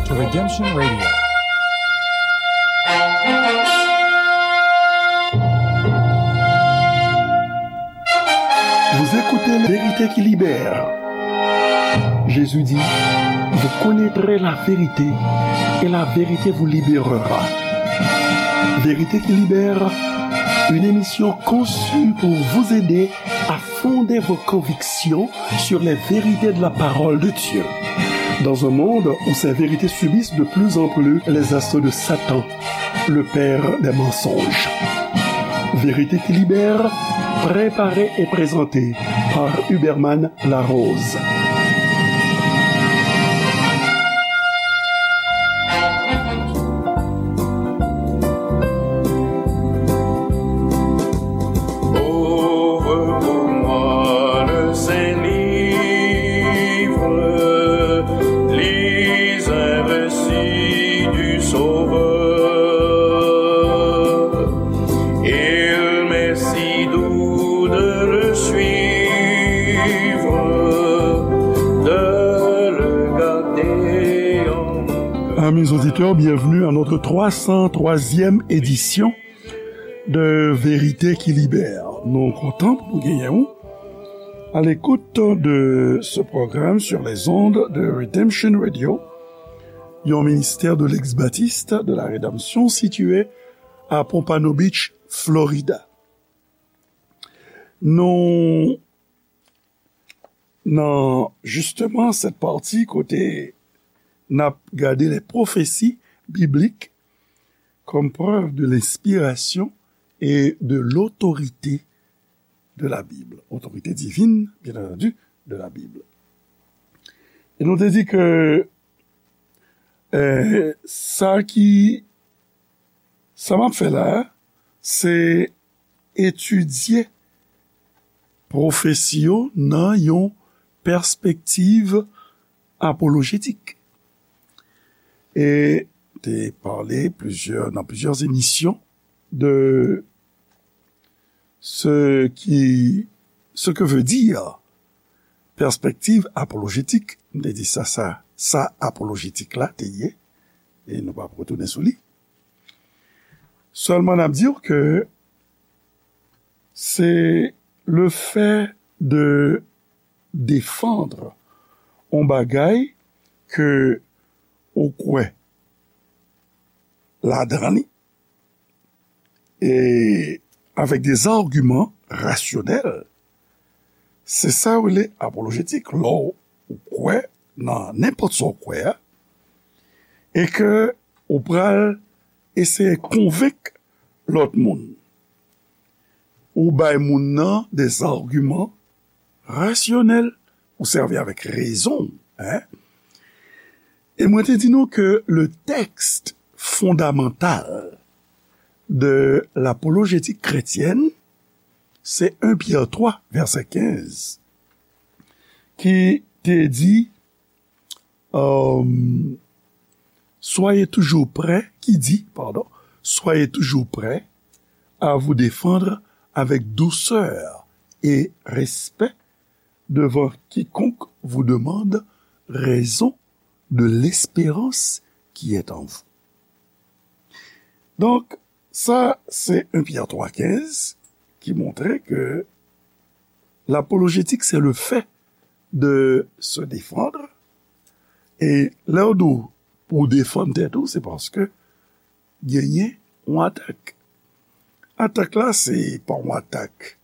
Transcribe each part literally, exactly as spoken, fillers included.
Redemption Radio. Vous écoutez La Vérité qui libère. Jésus dit, vous connaîtrez la vérité et la vérité vous libérera. Vérité qui libère, une émission conçue pour vous aider à fonder vos convictions sur les vérités de la parole de Dieu. Dans un monde où ces vérités subissent de plus en plus les assauts de Satan, le père des mensonges. Vérité qui libère, préparée et présentée par Huberman Larose. Ouvre pour moi le Saint Livre, lis un récit du Sauveur. Il m'est si doux de le suivre, de le garder en mon cœur. Amis auditeurs, bienvenue à notre trois cent troisième édition de Vérité qui Libère. Nou kontan pou nou genyen w à l'écoute de ce programme sur les ondes de Redemption Radio, yon ministère de l'ex-baptiste de la rédemption situé à Pompano Beach, Florida. Nou nan justement cette partie kote n ap gade les prophéties bibliques comme preuve de l'inspiration et de l'autorité de la Bible. Autorité divine, bien entendu, de la Bible. E nou te di ke eh, sa ki sa m ap fè la a, se etidye pwofesi yo nan yon pèspektiv apolojetik. E te pale plizyè, nan plizyè emisyon de ce qui, ce que veut dire pèspektiv apolojetik. M te di sa, sa, sa apolojetik la te ye, e nou p ap retounen sou li. Sèlman n ap di w ke se le fait de défendre yon bagay ke ou kwè ladan li, e avèk des arguments rationnels, se sa yo rele apolojetik. Lè w kwè nan nenpòt sa w kwè a, e ke ou pral eseye konvenk lòt moun, ou bay moun nan des arguments rationnels, ou sèvi avèk rezon, hein? E mwen te di nou ke le texte fondamental de l'apologétique chrétienne, se un Pyè twa, vèsè kenz, ki te di, euh, soyez toujours prêts, ki di, pardon, soyez toujours prêts à vous défendre avec douceur et respect devant quiconque vous demande raison de l'espérance qui est en vous. Donk, sa, se un Pyè twa kenz ki montre ke l'apologétique, c'est le fait de se défendre. E lè w di w pou w defann tèt ou, se paske genyen yon atak. Atak la, se pa yon atak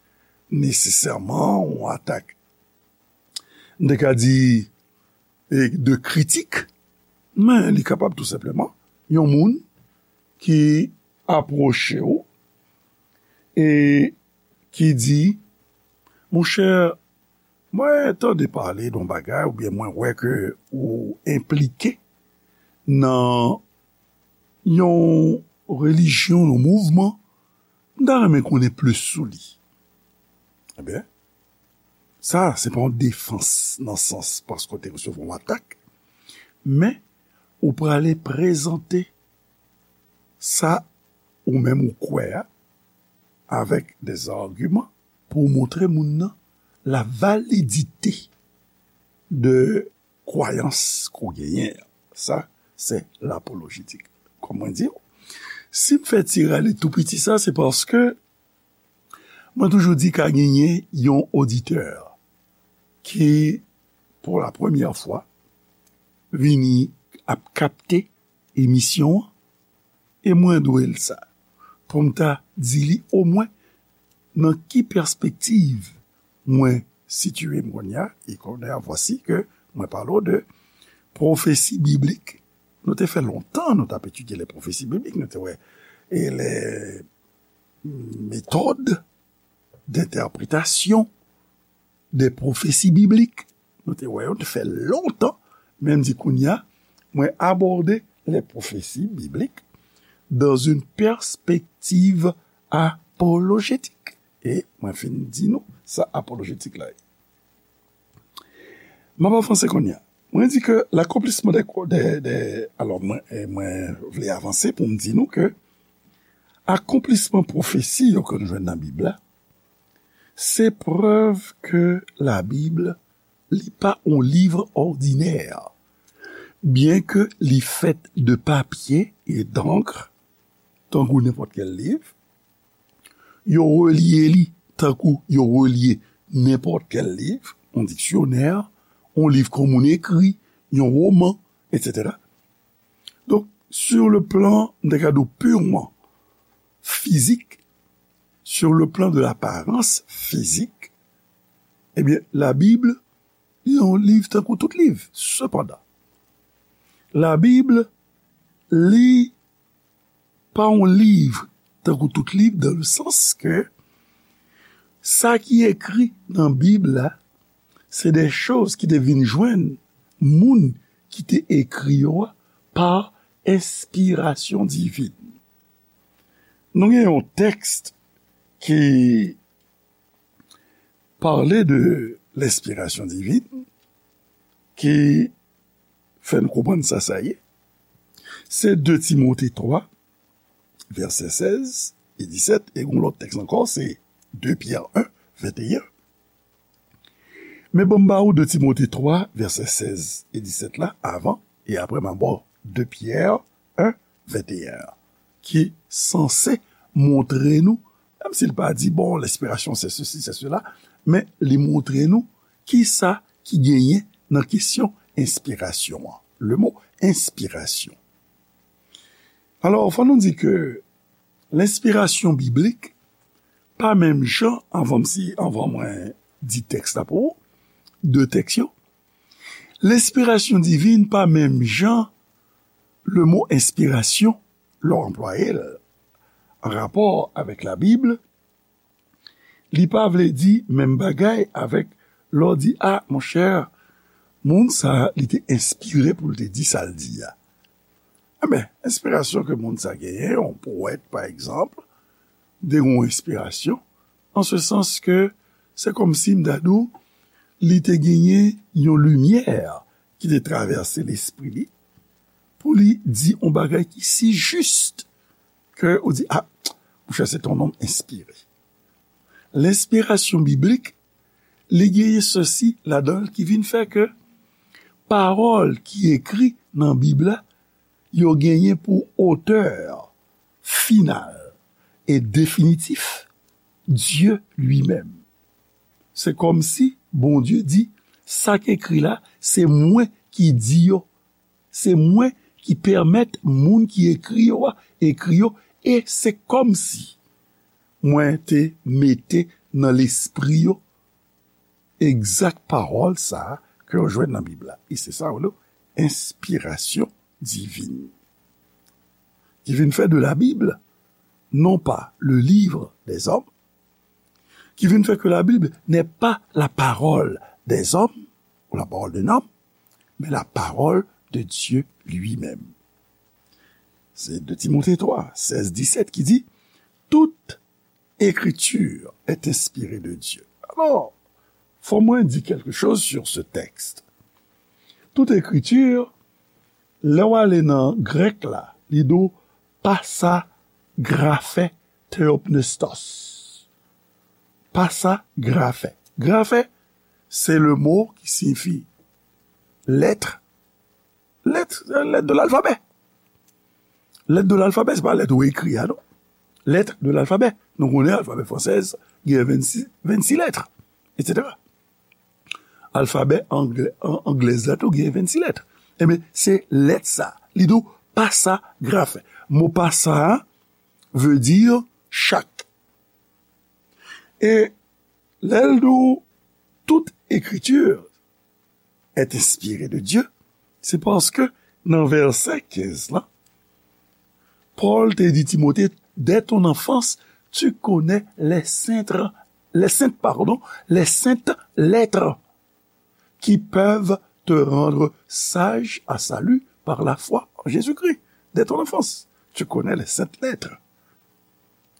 nesesèman, yon atak, m te ka di, e, de kritik, men li kapab tou senpleman yon moun ki apwoche w e ki di, monchè, mwen tande pale de yon bagay, oubyen mwen wè ke ou enplike nan yon relijyon, yon mouvman, m ta renmen konnen plis sou li. Ebyen, sa, se pa yon defans nan sans paske w te resevwa yon atak, men ou prale prezante sa ou menm ou kwè a avèk des arguments pou w montre moun nan la validite de kwayans ke w genyen an. Sa, c'est l'apologétique. Kòm mwen di w, si m fè ti rale tou piti sa, se paske mwen toujou di ka genyen yon oditè ki, pou la premyè fwa, vini ap kapte emisyon an, e mwen dwe l sa, pou m ta di li omwen nan ki pèspektiv mwen sitiye m kounye a, e kounye a, vwasi ke mwen pale w de pwofesi biblik. Nou te fè lontan, nou t ap etidye les prophéties bibliques, nou te wè, e les méthodes d'interprétation des prophéties bibliques. Nou te wè yo, te fè lontan, men m di kounye a, mwen abòde les prophéties bibliques dans une perspective apologétique. E mwen fin di nou sa apolojetik la ye. M ap avanse kounye a. Mwen di ke l'accomplissement des, des, des, alò, mwen, e mwen vle avanse pou m di nou ke akonplisman pwofesi yo ke nou jwenn nan Bib la, se prèv ke Labib, li pa yon liv òdinè. Byenke li fèt de papye e d'ankr, tankou nenpòt kèl liv, yo relye li tankou yo relye nenpòt kèl liv, yon diksyonè, yon liv ke moun ekri, yon woman, etsetera. Donk, sur le plan, m ta ka di w, purement physique, sur le plan de l'apparence physique, ebyen, Labib, li yon liv tankou tout liv. Sepandan, Labib, li pa yon liv tankou tout liv, dans le sens que sa ki ekri nan Bib la, se de choz ki te vin jwenn moun ki te ekri yo a pa enspirasyon divin. Nou gen yon tèks ki pale de lenspirasyon divin, ki fè n konprann sa sa ye. Se de Timote twa, vèsè sèz e disèt, e yon lòt tèks ankò, se de Pyè en, venteyen. Men ban m ba ou de Timote twa, vèsè sèz e disèt la, avan, e apre m a ba w de Pyè en, venteyen, ki sanse montre nou, menm si l pa di, bon, lenspirasyon se sesi, se sela, men li montre nou kisa ki genyen nan kesyon enspirasyon an. Le mo enspirasyon. Alò, fò nou di ke lenspirasyon biblik pa menm jan, anvan m si, anvan mwen di tèks la pou ou, de tèks yo, lenspirasyon divin pa menm jan le mo enspirasyon, lè w anplwaye l an rapò avèk Labib, li pa vle di menm bagay avèk lè w di, a, monchè, moun sa a, li te enspire pou l te di sa l di a. Enben, enspirasyon ke moun sa genyen, yon powèt, pa egzanp, te gen yon enspirasyon, an se sans ke se kòmsi m ta di w, li te genyen yon limyè ki te travèse lespri li, pou li di yon bagay ki si jis ke ou di, a, monchè, se yon nonm enspire. Lenspirasyon biblik, li genyen sesi ladan l ki vin fè ke pawòl ki ekri nan Bib la, yo genyen pou otè final e definitif, Dye li menm. Se kòmsi Bondye di, sa k ekri la, se mwen ki di yo. Se mwen ki pèmèt moun ki ekri yo a, ekri yo, e se kòmsi mwen te mete nan lespri yo egzak pawòl sa a ke yo jwenn nan Bib la. E se sa yo rele enspirasyon divin. Ki vin fè de Labib, non pas le livre des hommes, qui vient faire que la Bible n'est pas la parole des hommes ou la parole d'un homme, mais la parole de Dieu lui-même. C'est de Timothée trois, seize, dix-sept qui dit, toute écriture est inspirée de Dieu. Alors, fò mwen di quelque chose sur ce texte. Toute écriture, lè w ale nan grèk la, li di w pasa grafe theopneustos. Pasa grafe. Grafe, c'est le mot qui signifie lettre, lettre, lettre de l'alphabet. Lettre de l'alphabet, se pa lèt ou ekri a, non. Lettre de l'alphabet. Nou konnen alfabè fransèz gen vennsis, vennsis lèt, etsetera. Alfabè anglè, an, anglèz la tou gen vennsis lèt. Ebyen, se lèt sa. Li di w pasa grafen. Mo pasa a vle di chak. E lè l di w tout écriture est inspirée de Dieu, se paske nan vèsè kenz la, Pòl te di Timote, dès ton enfance, tu connais les saintes, les saintes, pardon, les saintes lettres qui peuvent te rendre sage à salut par la foi en Jésus-Christ. Dès ton enfance, tu connais les saintes lettres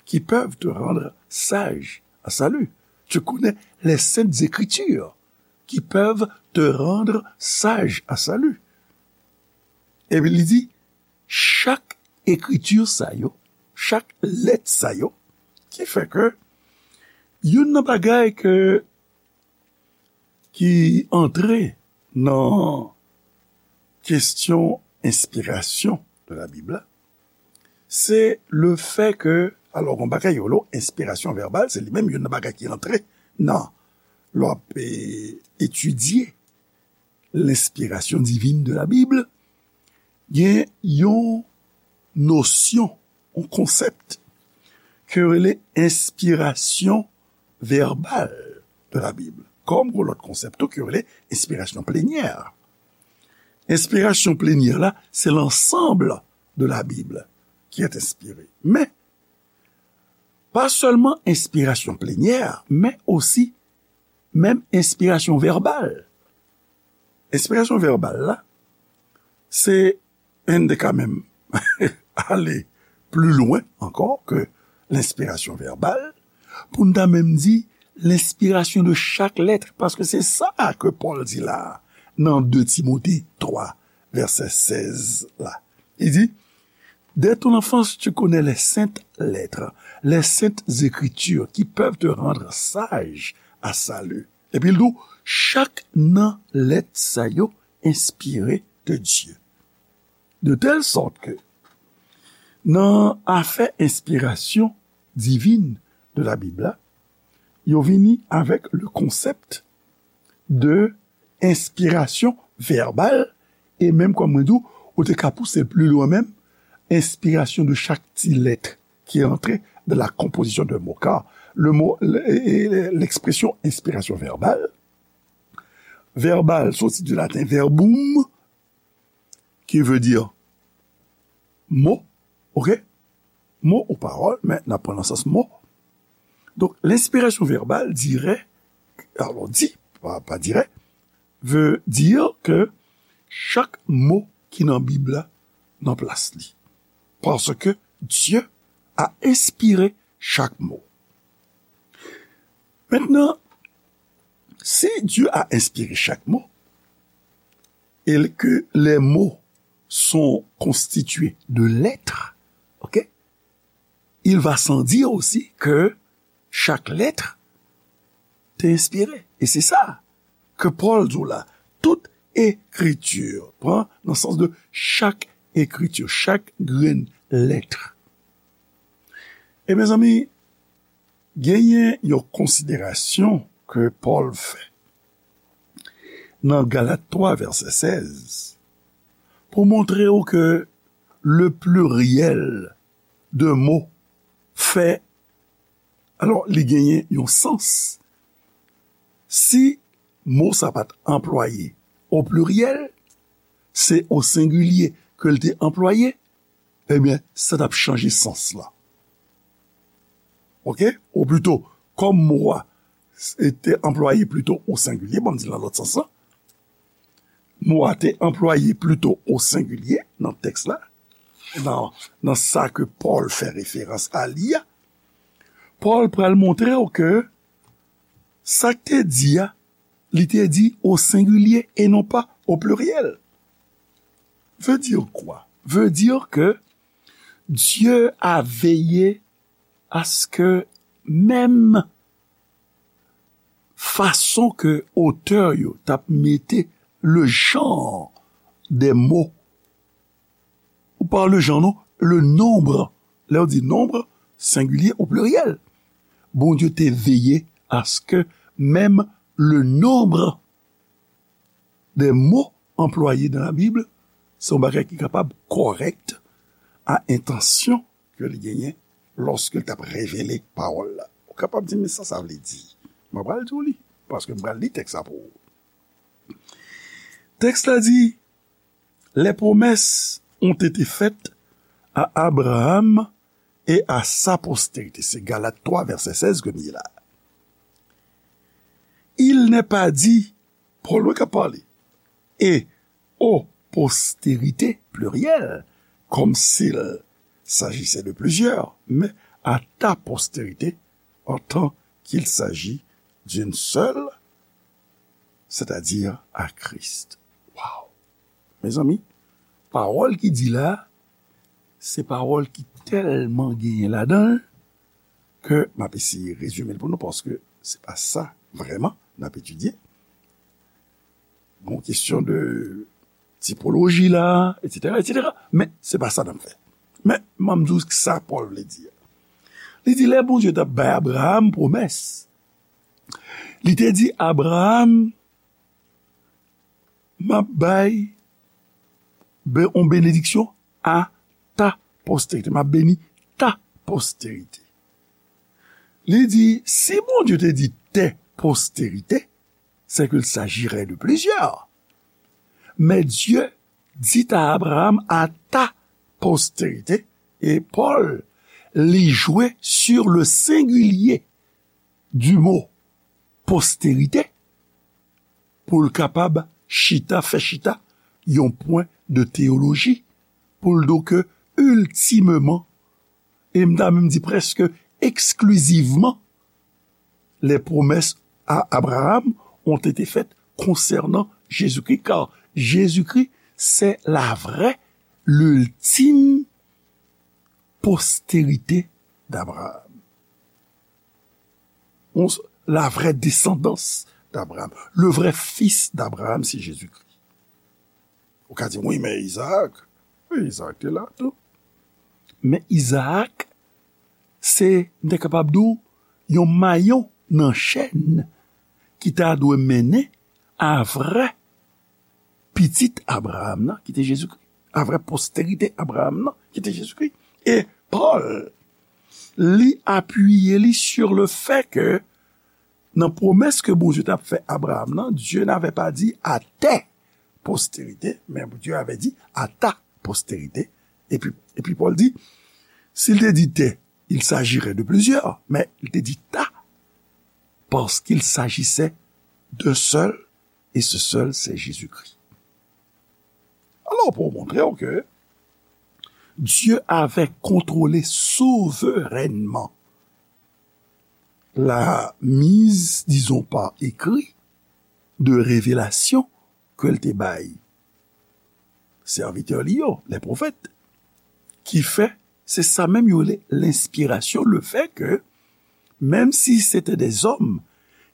qui peuvent te rendre sage à salut. Tu connais les saintes écritures qui peuvent te rendre sage à salut. Epi li di, chak ekriti sa yo, chak lèt sa yo, ki fè ke youn nan bagay ke, ki antre nan kesyon enspirasyon de la Bib la, se le fè ke, alò, gon bagay yo lo enspirasyon vèbal, se li menm youn nan bagay ki antre nan, lè w ap, eh, etidye lenspirasyon divin de la Bib, gen yon nosyon, yon konsèp ke yo rele enspirasyon vèbal de la Bib. Kòm gon lòt konsèp tou ke yo rele enspirasyon plenyè. Enspirasyon plenyè la, se l'ensemble de la Bible qui est inspirée. Men, pa sèlman enspirasyon plenyè, men osi menm enspirasyon vèbal. Enspirasyon vèbal la, se, e n te ka menm ale pli lwen ankò ke lenspirasyon vèbal, pou n ta menm di lenspirasyon de chak lèt, paske se sa ke Pòl di la a, nan de Timote twa, vèsè sèz la. Li di, dès ton enfance, tu connais les saintes lettres, les saintes écritures qui peuvent te rendre sage à salut. Epi l di w, chak nan lèt sa yo enspire de Dieu. De telle sorte que, nan afè enspirasyon divin de la Bib la, yo vini avèk le konsèp de enspirasyon vèbal, e menm kòm mwen di w, ou te ka pouse l pli lwen menm, enspirasyon de chak ti lèt ki antre dans la composition d'un mot, car le mot, le, e, e, l'expression inspiration verbale, verbal soti di laten verbum, qui veut dire mot, ok? Mot ou parole, men n ap pran nan sans mot. Donk, lenspirasyon vèbal, dirè, alò, di, pa, pa dirè, veut dire que chak mo ki nan Bib la nan plas li. Parce que Dieu a inspiré chaque mot. Maintenant, si Dieu a inspiré chaque mot, et que les mots sont constitués de lettres, ok? Il va sans dire aussi que chaque lettre te enspire. E se sa ke Pòl di w la. Tout écriture, pran nan sans de chak écriture, chak grenn lèt. E mezanmi, genyen yon konsiderasyon ke Pòl fè nan Galat twa, vèsè sèz, pou montre w ke le pluriel de mots fè, alò, li genyen yon sans. Si mo sa pa t anplwaye o pliryèl, se o sengilye ke l te anplwaye, ebyen, sa t ap chanje sans la. Ok? Ou plito, kòm mo a s-, te anplwaye plito o sengilye, bon, m di l nan lòt sans lan, mo a te anplwaye plito o sengilye nan tèks la, nan, nan sa ke Pòl fè referans a li a, Pòl pral montre w ke sa k te di a, li te di o sengilye e non pa o pliryèl. Veut dire quoi? Veut dire que Dieu a veillé à ce que menm fason ke otè yo t ap mete le genre des mots, ou pa le genre, non, le nombre. Lè w di nombre, sengilye ou pliryèl. Bondye te veye aske menm le nombre des mots employés dans la Bible, se yon bagay ki kapab kòrèk a entansyon ke li genyen lòske l t ap revele pawòl la. Ou kapab di, "Men sa sa vle di?" Mwen pral di w li, paske m pral li tèks la pou ou. Tèks la di, "Les promesses ont été faites à Abraham et à sa postérité." Se Galat twa, vèsè sèz ke m li la. Il n'est pas dit, Pòl wi k ap pale, et aux postérités, pluriel, comme s'il s'agissait de plusieurs, mais à ta postérité, en tant qu'il s'agit d'une seule, c'est-à-dire à Christ. Waw! Mezanmi, pawòl ki di la, se pawòl ki tèlman genyen ladan l ke m ap eseye rezime l pou nou, paske se pa sa vrèman n ap etidye. Bon, kesyon de tipoloji la, etsetera, etsetera. Men, se pa sa n ap fè. Men, m ap di w sa Pòl vle di a. Li di, lè Bondye t ap bay Abraham pwomès, li te di Abraham, "M ap bay be-, yon benediksyon a ta postérité. M ap beni ta postérité." Li di, si Bondye te di tes postérités, c'est qu'il s'agirait de plusieurs. Mais Dieu dit à Abraham, à ta postérité, et Paul, li jwe sur le singulier du mot postérité pou l kapab chita, fè chita yon pwen de teyoloji, pou l di w ke iltimeman, e m ta menm di prèske eksklizivman, les promesses à Abraham ont été faites concernant Jésus-Christ, car Jésus-Christ, c'est la vraie, l'ultime postérité d'Abraham. On s-, la vraie descendance d'Abraham, le vrai fils d'Abraham, c'est Jésus-Christ. Ou ka di, wi, men Izaak, wi, Izaak te la tou. Men Izaak, se, m te kapab di w, yon mayon nan chèn ki ta dwe mennen a vrè pitit Abraham nan, ki te Jezikri, a vrè posterite Abraham nan, ki te Jezikri. E Pòl, li apiye li sur le fait que, nan pwomès ke Bondye t ap fè Abraham nan, Dieu n'avait pas dit à tes postérités, mais Dieu avait dit à ta postérité. Epi, epi Pòl di, si l te di tes, il s'agirait de plusieurs, men li te di ta, parce qu'il s'agissait d'un seul, et ce seul, c'est Jésus-Christ. Alors, pour montrer que Dieu avait contrôlé souverainement la mise, disons, par écrit de révélation ke l te bay sèvitè li yo, les prophètes, ki fè, se sa menm yo rele lenspirasyon, le fait que, même si c'était des hommes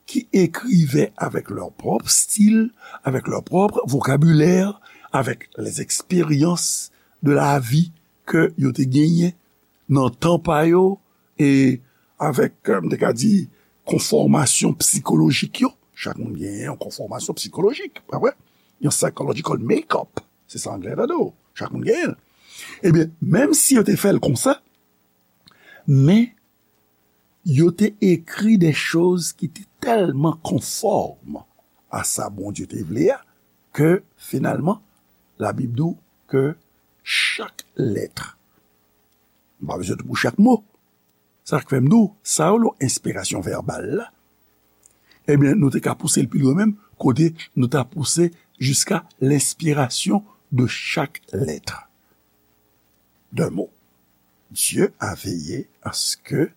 qui écrivaient avec leur propre style, avec leur propre vocabulaire, avec les expériences de la vie ke yo te genyen nan tan pa yo, e avèk, euh, m te ka di, konfòmasyon sikolojik yo. Chak moun genyen yon konfòmasyon sikolojik, pa vre? Yon psychological makeup. Se sa anglè ta di w. Chak moun genyen l. Ebyen, menm si yo te fè l konsa, men yo te ekri de choz ki te tèlman konfòm a sa Bondye te vle a, ke finalman, Labib di w ke chak lèt, m pa bezwen di pou chak mo, sa k fè m di w, sa yo, enspirasyon vèbal la, ebyen, nou te ka pouse l pi lwen menm, kote nou ta pouse jiska lenspirasyon de chak lèt, d'un mot. Dieu a veillé à ce que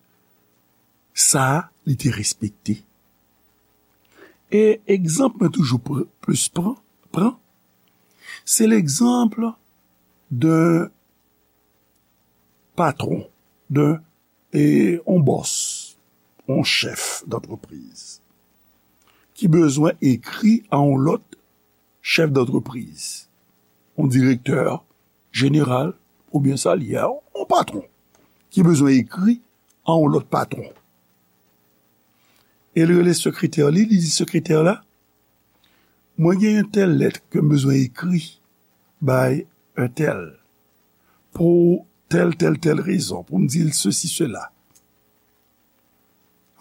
sa a, li te respekte. E egzanp mwen toujou pr-, plis pran, pran, se legzanp d'un patwon, d'un, e, yon bòs, yon chèf d'antrepriz, ki bezwen ekri a yon lòt chèf d'antrepriz. yon direktè jeneral, oubyen sa l ye a, yon patwon, ki bezwen ekri a yon lòt patwon. E l rele sekretè li, li di sekretè la, mwen gen yon tèl lèt ke m bezwen ekri bay entèl pou tèl, tèl, tèl rezon, pou m di l sesi, sela.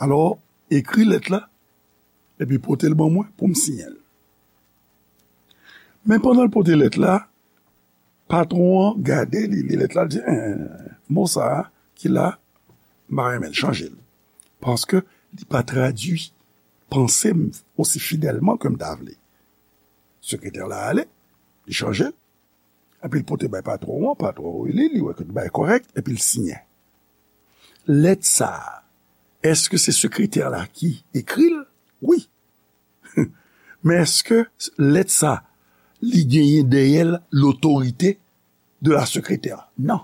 Alò, ekri lèt la, epi pote l ban mwen pou m siyen l. Men pandan l pote lèt la, patwon an gade, li li lèt la, li di, en, mo sa a ki la, m pa renmen l, chanje l. Paske li pa tradui panse m osi fidèlman ke m ta vle. Sekretè la ale, li chanje l, epi l pote bay patwon an, patwon an li, li wè ke tout bagay kòrèk, epi l siyen. Lèt sa a, èske se sekretè la ki ekri l? Wi. Men èske lèt sa, li genyen dèyè l lotorite de la sekretè? Non.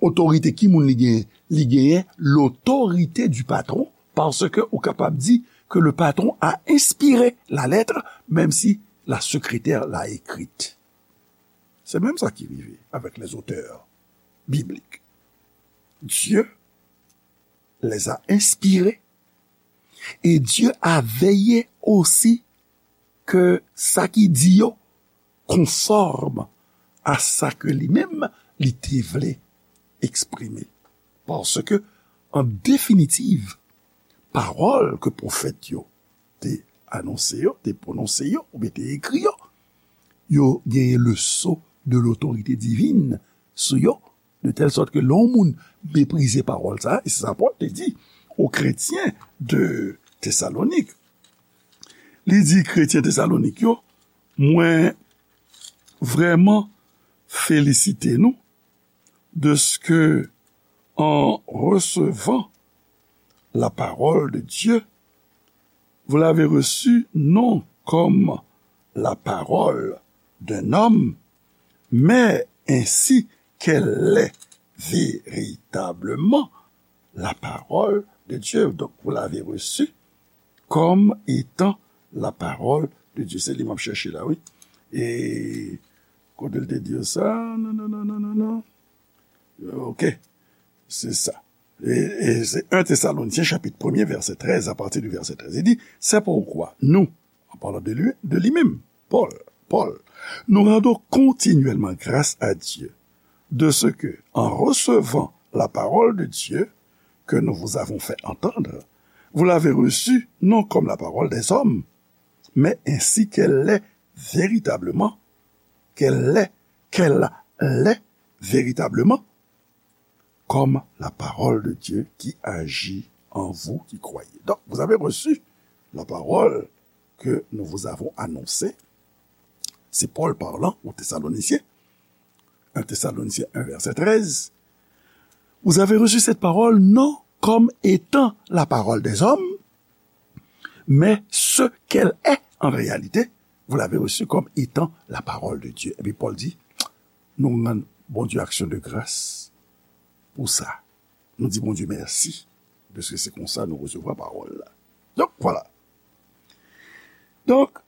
Otorite ki moun li genyen? Li genyen l'autorité du patron, paske ou kapab di que le patron a inspiré la lettre, même si la secrétaire l'a écrite. Se menm sa ki rive avec les auteurs bibliques. Dieu les a inspirés et Dieu a veillé aussi ke sa ki di yo konfòm a sa ke li menm li te vle eksprime. Paske, an definitiv, pawòl ke pwofèt yo te anonse yo, te pwononse yo, oubyen te ekri yo, yo genyen le sceau de l'autorité divine sou yo, de telle sorte que lè yon moun meprize pawòl sa, e se sa Pòl te di aux chrétiens de Thessalonique. Li di kretyen Tesalonik yo, mwen vrèman felisite nou de ce que, en recevant la parole de Dieu, vous l'avez reçue non comme la parole d'un homme, mais ainsi qu'elle est véritablement la parole de Dieu. Donc, vous l'avez reçue comme étant la parole de Dieu. Se li m ap chèche la, wi. E kote l te di yo sa? Non, non, non, non, non, non. Ok. Se sa. E, e se un Thessaloniciens chapitre premier, verset treize, à partir du verset treize. Li di, c'est pourquoi nous, en parlant de lui, de lui-même, Paul, Paul, nous rendons continuellement grâce à Dieu de ce que, en recevant la parole de Dieu que nous vous avons fait entendre, vous l'avez reçue non comme la parole des hommes, mais ainsi qu'elle l'est véritablement, qu'elle l'est, qu'elle l'est véritablement, comme la parole de Dieu qui agit en vous qui croyez. Donc, vous avez reçu la parole que nous vous avons annoncée. C'est Paul parlant aux Thessaloniciens. Un Thessaloniciens un, verset treize. Vous avez reçu cette parole non comme étant la parole des hommes, mais ce qu'elle est en réalité, vous l'avez reçue comme étant la parole de Dieu. Epi Pòl di, nou rann Bondye aksyon de gras pou sa. Nou di Bondye mèsi, paske se konsa nou resevwa pawòl la. Donk, vwala. Donk,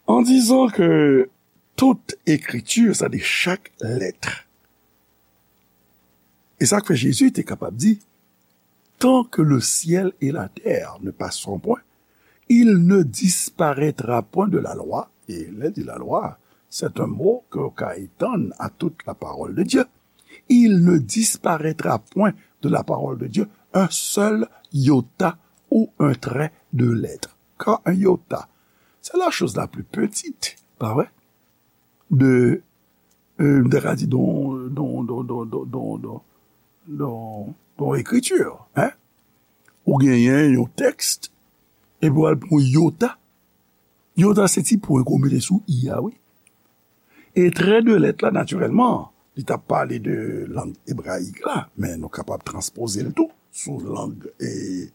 en disant que toute écriture, c'est-à-dire chaque lettre, e sa k fè Jezi te kapab di, tant que le ciel et la terre ne passeront point, il ne disparaîtra point de la loi. E lè di la lwa, c'est un mot ke w ka etann à toute la parole de Dieu. Il ne disparaîtra point de la parole de Dieu un seul iota ou un trait de lettre. Car un iota, c'est la chose la plus petite, pa vre? De, euh, m ta ka di don, don, don, don, don, don, don, don, don ekriti, hein? Ou genyen yon tèks, epi w al pran yon iota. Iota se ti pwen ke w mete sou i a, wi. E trait de lettre la, natirèlman, li t ap pale de lang ebrayik la, men nou kapab transpoze l tou sou lang, e,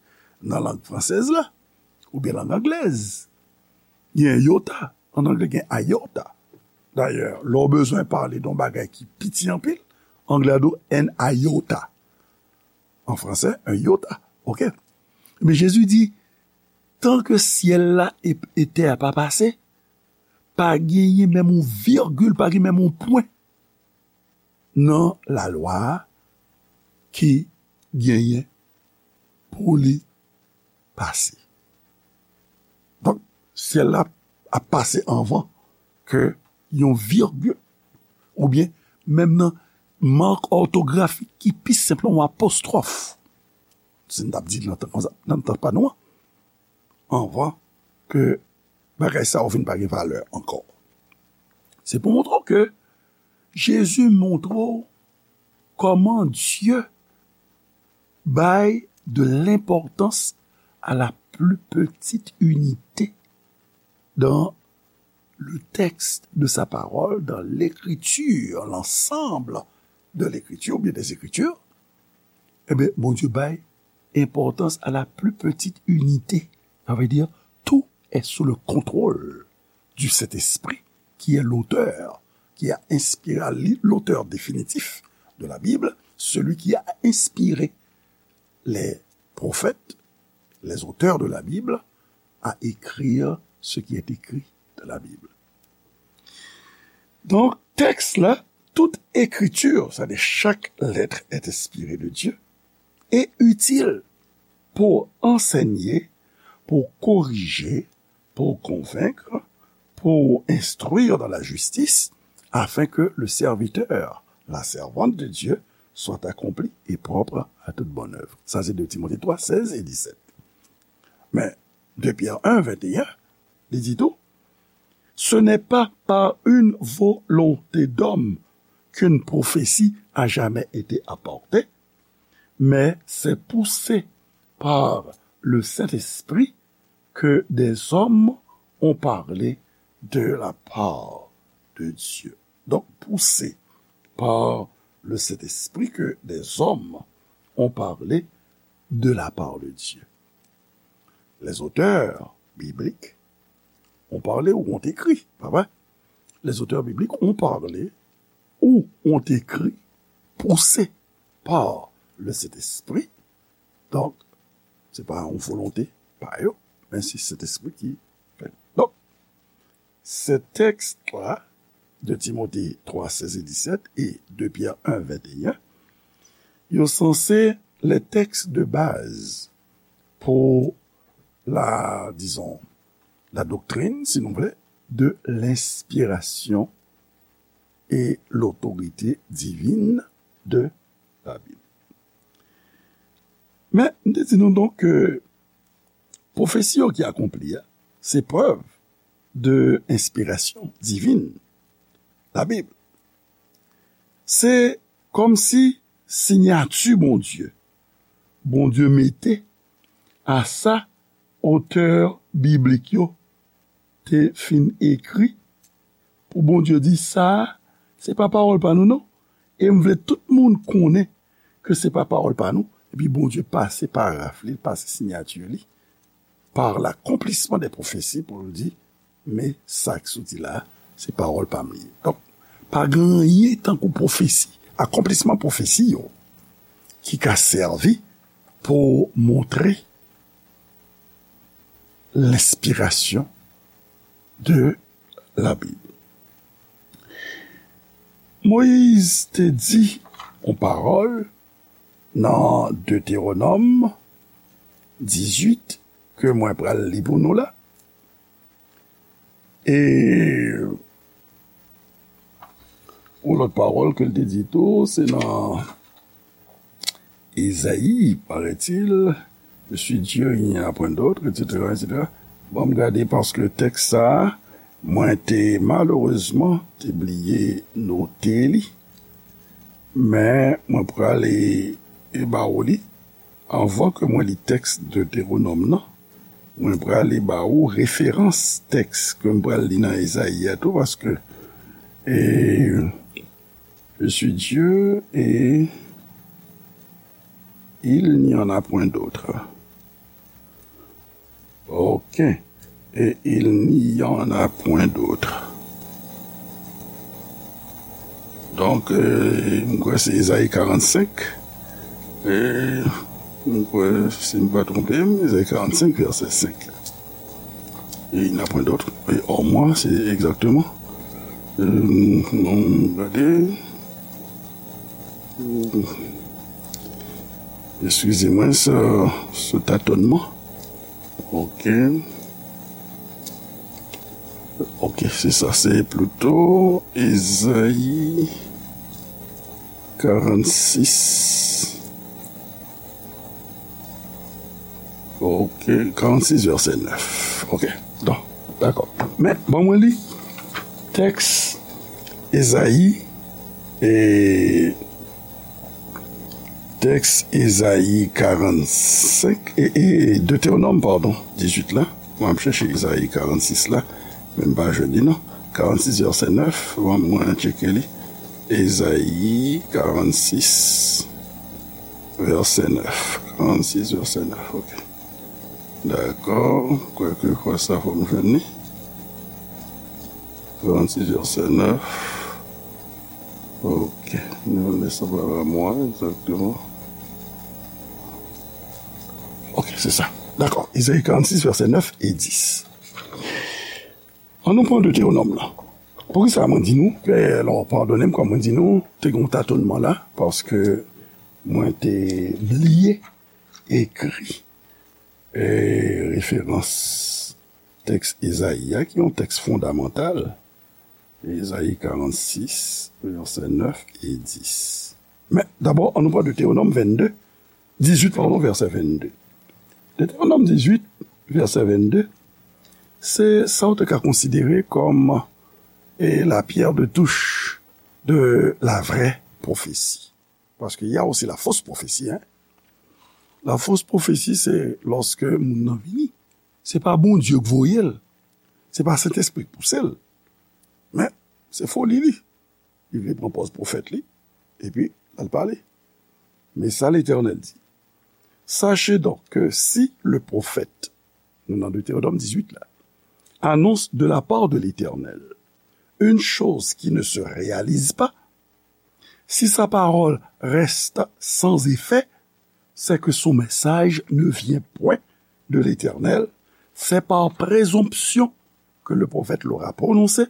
nan lang fransèz la, oubyen lang anglèz. Gen iota, an anglè gen iota. Dayè, lè w bezwen pale de yon bagay ki piti anpil, anglè a di w an iota. An fransè, un iota. Ok? Men Jezi di, tan ke syèl la e, e tè a pa pase, pa genyen menm yon vigil, pa gen menm yon pwen nan lalwa a ki genyen pou li pase. Donk, syèl la ap pase anvan ke yon vigil, oubyen menm nan mak òtografik ki pi senp lan, yon apostwòf, si n t ap di l nan tan konsa, nan tan pa nou an, anvan ke bagay sa yo vin pa gen valè ankò. Se pou montre w ke Jezi montre w kòman Dye bay de l'importance à la plus petite unité dans le texte de sa parole, dans l'écriture, l'ensemble de l'écriture, oubyen des écritures, ebyen, Bondye bay importance à la plus petite unité. Ça veut dire, tout est sous le contrôle du Saint-Esprit, qui est l'auteur, qui a inspiré, l'auteur définitif de la Bible, celui qui a inspiré les prophètes, les auteurs de la Bible, à écrire ce qui est écrit dans la Bible. Donk, tèks la, toute écriture, c'est-à-dire chaque lettre est inspirée de Dieu, est utile pour enseigner, pour corriger, pour convaincre, pour instruire dans la justice, afin que le serviteur, la servante de Dieu, soit accompli et propre à toute bonne œuvre. Sa se de Timote twa, sèz e disèt. Men, de Pyè en, venteyen, li di tou, ce n'est pas par une volonté d'homme qu'une prophétie a jamais été apportée, mais c'est poussé par le Saint-Esprit que des hommes ont parlé de la part de Dieu. Donc, poussé par le Saint-Esprit que des hommes ont parlé de la part de Dieu. Les auteurs bibliques ont parlé ou ont écrit, pa vre? Les auteurs bibliques ont parlé ou ont écrit, poussés par le Saint-Esprit. Donk, se pa yon volonte pa yo, men se Sentespri ki fè. Donk, se tèks la, de Timote twa, sèz e disèt e de Pyè en, venteyen, yo sanse les textes de base pour la, disons, la doctrine, si nou vle, de l'inspiration et l'autorité divine de la Bible. Men, m te di nou donk ke pwofesi yo ki akonpli a, se prèv de enspirasyon divin Labib. Se kòmsi siyati Bondye, Bondye mete a sa otè biblik yo te fin ekri, pou Bondye di, sa a, se pa pawòl pa nou, non. E m vle tout moun konnen ke se pa pawòl pa nou. Epi Bondye pase paraf li, pase siyati li, par l'accomplissement des prophéties, pou l di, men sa k soti la, se pawòl pa m li ye. Donk, pa gen anyen tankou pwofesi, akonplisman pwofesi yo, ki ka sèvi pou montre lenspirasyon de Labib. Moyiz te di yon pawòl nan Detewonòm dizuit ke mwen pral li pou nou la. E yon lòt pawòl ke l te di tou, se nan Ezayi, paraît-il, je suis Dieu, il n'y en a point d'autre, et cetera, et cetera. Bon, m gade paske tèks sa a, mwen te malerezman te bliye note li. Men mwen prale e ba ou li. Anvan ke mwen li tèks Detewonòm nan, mwen prale ba ou referans tèks ke m pral li nan Ezayi a tou, paske, e, Je suis Dieu et il n'y en a point d'autre. Ok. Et il n'y en a point d'autre. Donk, euh, m kwè se Ezayi karannsenk. E m kwè, si m pa twonpe m, Ezayi karannsenk, vèsè senk. Et il n'a point d'autre. Et hors moi, c'est exactement. Euh, non, gade. Eskize mwen, se, se tatonman. Ok. Ok, se sa, se plito Ezayi karannsis. Ok, karannsis vèsè nèf. Ok, bon, dakò. Men, bon, mwen li tèks Ezayi, e, tèks Ezayi karannsenk, e, e, Detewonòm, padon, dizuit la. Mwen ap chèche Ezayi karannsis la, men m pa jwenn li, non. Karannsis vèsè nèf, mwen, mwen tcheke li. Ezayi karannsis, vèsè nèf. Karannsis, vèsè nèf, ok. Dakò, kwèke kwa sa fò m jwenn li. Karannsis, vèsè nèf. Ok, nou lè sa pa la mwa, egzakteman. Ok, se sa. Dakò, Ezayi karannsis, vèsè nèf e dis. An nou pran Detewonòm lan. Poukisa mwen di nou, e, lò, padone m, kòm mwen di nou, te gen yon tatonman la, paske mwen te bliye ekri, e, referans tèks Ezayi a, ki yon tèks fondamantal, Ezayi karannsis, vèsè nèf e dis. Men, dabò, an nou pran Detewonòm vennde, dizuit, padon, vèsè vennde. Detewonòm dizuit, vèsè vennde, se sa w te ka konsidere kòm, e, la pierre de touche de la vraie prophétie. Paske y a aussi la fausse prophétie, hein. La fausse prophétie, se lòske moun nan vini. Se pa Bondye k voye l. Se pa Sentespri k pouse l. Men, se foli li. Li vle pran pòz pwofèt li, epi l al pale. Men sa Letènèl di, Sachez donc que si le prophète, nou nan Detewonòm dizuit la, annonce de la part de l'Éternel une chose qui ne se réalise pas, si sa parole reste sans effet, c'est que son message ne vient point de l'Éternel, c'est par présomption que le prophète l'aura prononcé,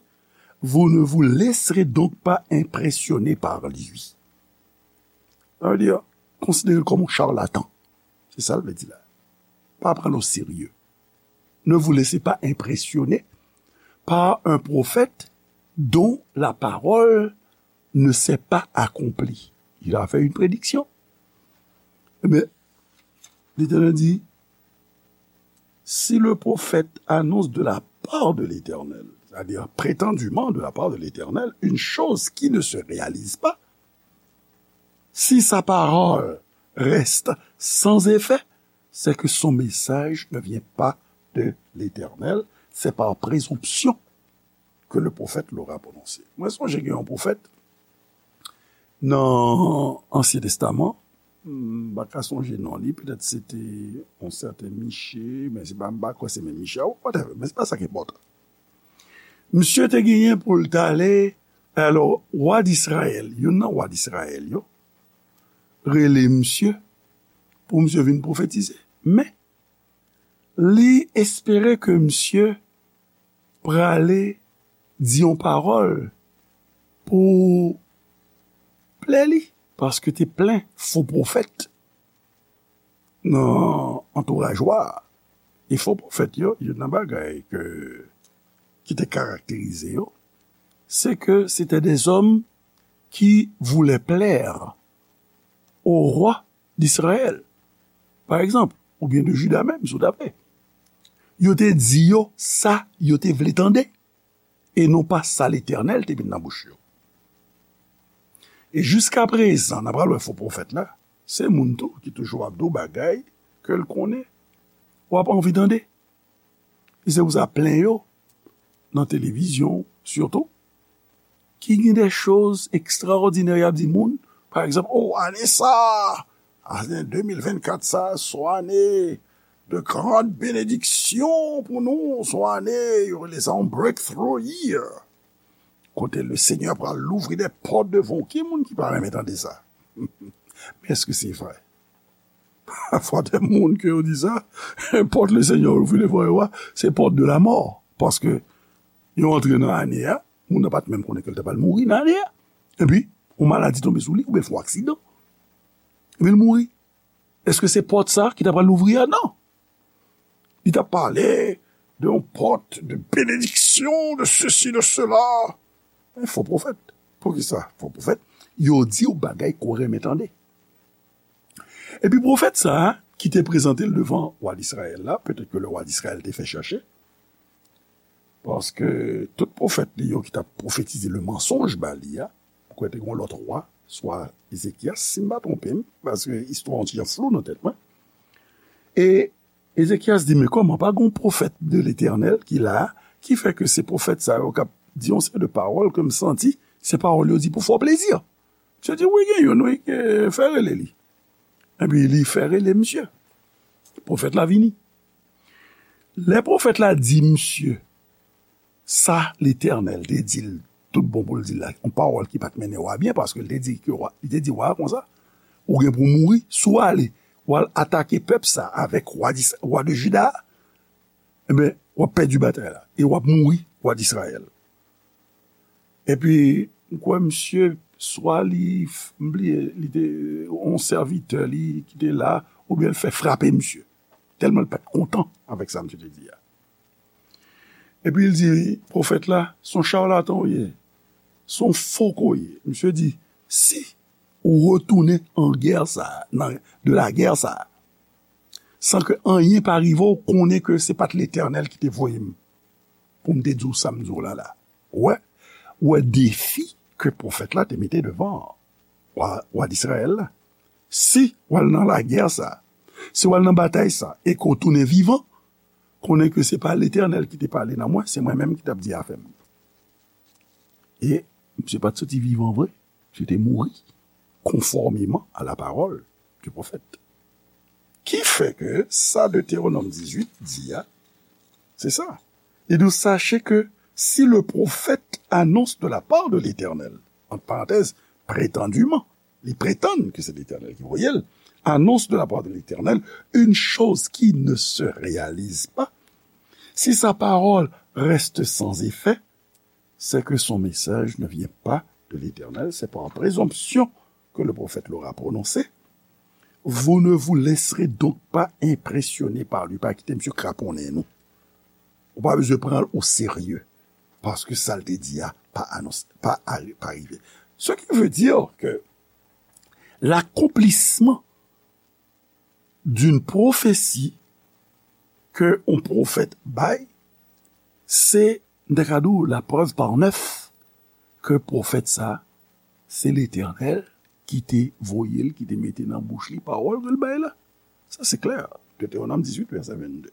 vous ne vous laisserez donc pas impressionner par lui. Sa vle di, konsidere l kòm yon charlatan. Se sa l vle di la. Pa pran l o serye. Ne vous laissez pas impressionner par un prophète dont la parole ne s'est pas accomplie. Il a fait une prédiction. Ebyen, Letènèl di, si le prophète annonce de la part de l'Éternel, c'est-à-dire prétendument de la part de l'Éternel, une chose qui ne se réalise pas, si sa parole reste sans effet, c'est que son message ne vient pas de l'Éternel, c'est par présomption que le prophète l'aura prononcé. Mwen sonje gen yon pwofèt nan Ansyen Testaman, m pa ka sonje non li, petèt se te yon sèten Miche, men se pa, m pa kwè se menm Miche a, whatever, men se pa sa ki enpòtan. Misye te genyen pou l t ale, alò, wa d Izrayèl, youn nan wa d Izrayèl yo, rele misye pou misye vin pwofetize. Men, li espere ke misye prale di yon pawòl pou plè li, paske te plen fo pwofèt nan antouraj wa a. E fo pwofèt yo, youn nan bagay ke, ki te karakterize yo, se ke se te de zòm qui voulaient plaire au roi d'Israël, pa egzanp, oubyen de Jida menm, si w ta vle. Yo te di yo sa yo te vle tande, e non pa sa Letènèl te met nan bouch yo. E jiskaprezan, n a pral wè fo pwofèt la, se moun tou ki toujou ap di w bagay ke l konnen w ap anvi tande. E se pou sa plen yo nan televizyon, sitou, ki gen de choz ekstraòdinè y ap di moun. Pa egzanp, o, ane sa a, ane de mil vennkat sa a, se yon ane de grande bénédiction pou nou, se yon ane, yo rele sa yon breakthrough year. Kote le Seigneur pral louvri de pòt devan w. Ki moun ki pa renmen tande sa? Men èske se vre? Pafwa, de moun ke yo di sa, pòt le Senyè ouvri devan yo a, se pòt de la mò. Paske yo antre nan ane a, moun nan pa t menm konnen ke l ta pral mouri nan ane a. Epi, yon maladi tonbe sou li, oubyen fè yon aksidan. Epi l mouri. Èske se pòt sa ki ta pral louvri a? Non. Li t ap pale de yon pòt de benediksyon, de sesi, de sela. Men fo pwofèt. Poukisa fo pwofèt? Yo di w bagay ke w renmen tande. Epi pwofèt sa a, ki te prezante l devan wa Dizrayèl la, petèt ke le wa Dizrayèl te fè chèche, paske tout pwofèt li yo ki t ap pwofetize le mansonj ba li a, m kwè te gen yon lòt wa, swa Ezekyas, si m pa twonpe m, paske istwa an ti jan flou nan tèt mwen. E Ezekyas di, men kòman, pa gen yon pwofèt de Letènèl ki la, ki fè ke se pwofèt sa yo k ap di yon seri de pawòl ke m santi se pawòl yo di pou fè w plezi? Misye di, wi, gen youn, wi, ke fè rele li. Epi li fè rele misye. Pwofèt la vini. Lè pwofèt la di misye sa Letènèl te di l, tout bon pou l di l la, yon pawòl ki pa t mennen w a byen, paske l te di ke wa, li te di wa a konsa, ou gen pou w mouri, si w ale, w al atake pèp sa avèk wa, wa de Jida a, enben, w ap pèdi batay la, e w ap mouri, wa Dizrayèl. Epi, m kwè misye, swa li, m bliye, li te yon sèvitè li ki te la, oubyen l fè frape misye. Tèlman l pa t kontan avèk sa misye te di a. Epi l di, pwofèt la, se yon charlatan w ye, se yon fo ke w ye. Misye di, si ou retounen an gè sa a, nan, de la gè sa a, san ke anyen pa rive w, konnen ke se pa t Letènèl ki te voye m pou m te di w sa m di w la la. Ou wè, ou wè defi ke pwofèt la te mete devan wa, wa Dizrayèl la. Si w al nan lagè sa, si w al nan batay sa, e ke w tounen vivan, konnen ke se pa Letènèl ki te pale nan mwen, se mwen menm ki t ap di afè m. E misye pa t soti vivan vre, misye te mouri, conformément à la parole du prophète. Ki fè ke sa Detewonòm dizuit di a, se sa. Li di, sachez que si le prophète annonce de la part de l'Éternel, entre parenthèses, prétendument, li prétend que c'est l'Éternel qui voyait, annonce de la part de l'Éternel une chose qui ne se réalise pas, si sa parole reste sans effet, c'est que son message ne vient pas de l'Éternel, c'est par présomption que le prophète l'aura prononcé. Vous ne vous laisserez donc pas impressionner par lui. Pa kite misye kraponnen nou. Ou pa bezwen pran l o serye. Paske sa l te di a pa anons, pa, pa rive. Ce qui veut dire que l'accomplissement d'une prophétie ke yon pwofèt bay, se, m ta ka di w, la preuve par neuf ke pwofèt sa, se Letènèl ki te voye l, ki te mete nan bouch li pawòl ke l bay la. Sa se klè. Detewonòm dizuit, vèsè vennde.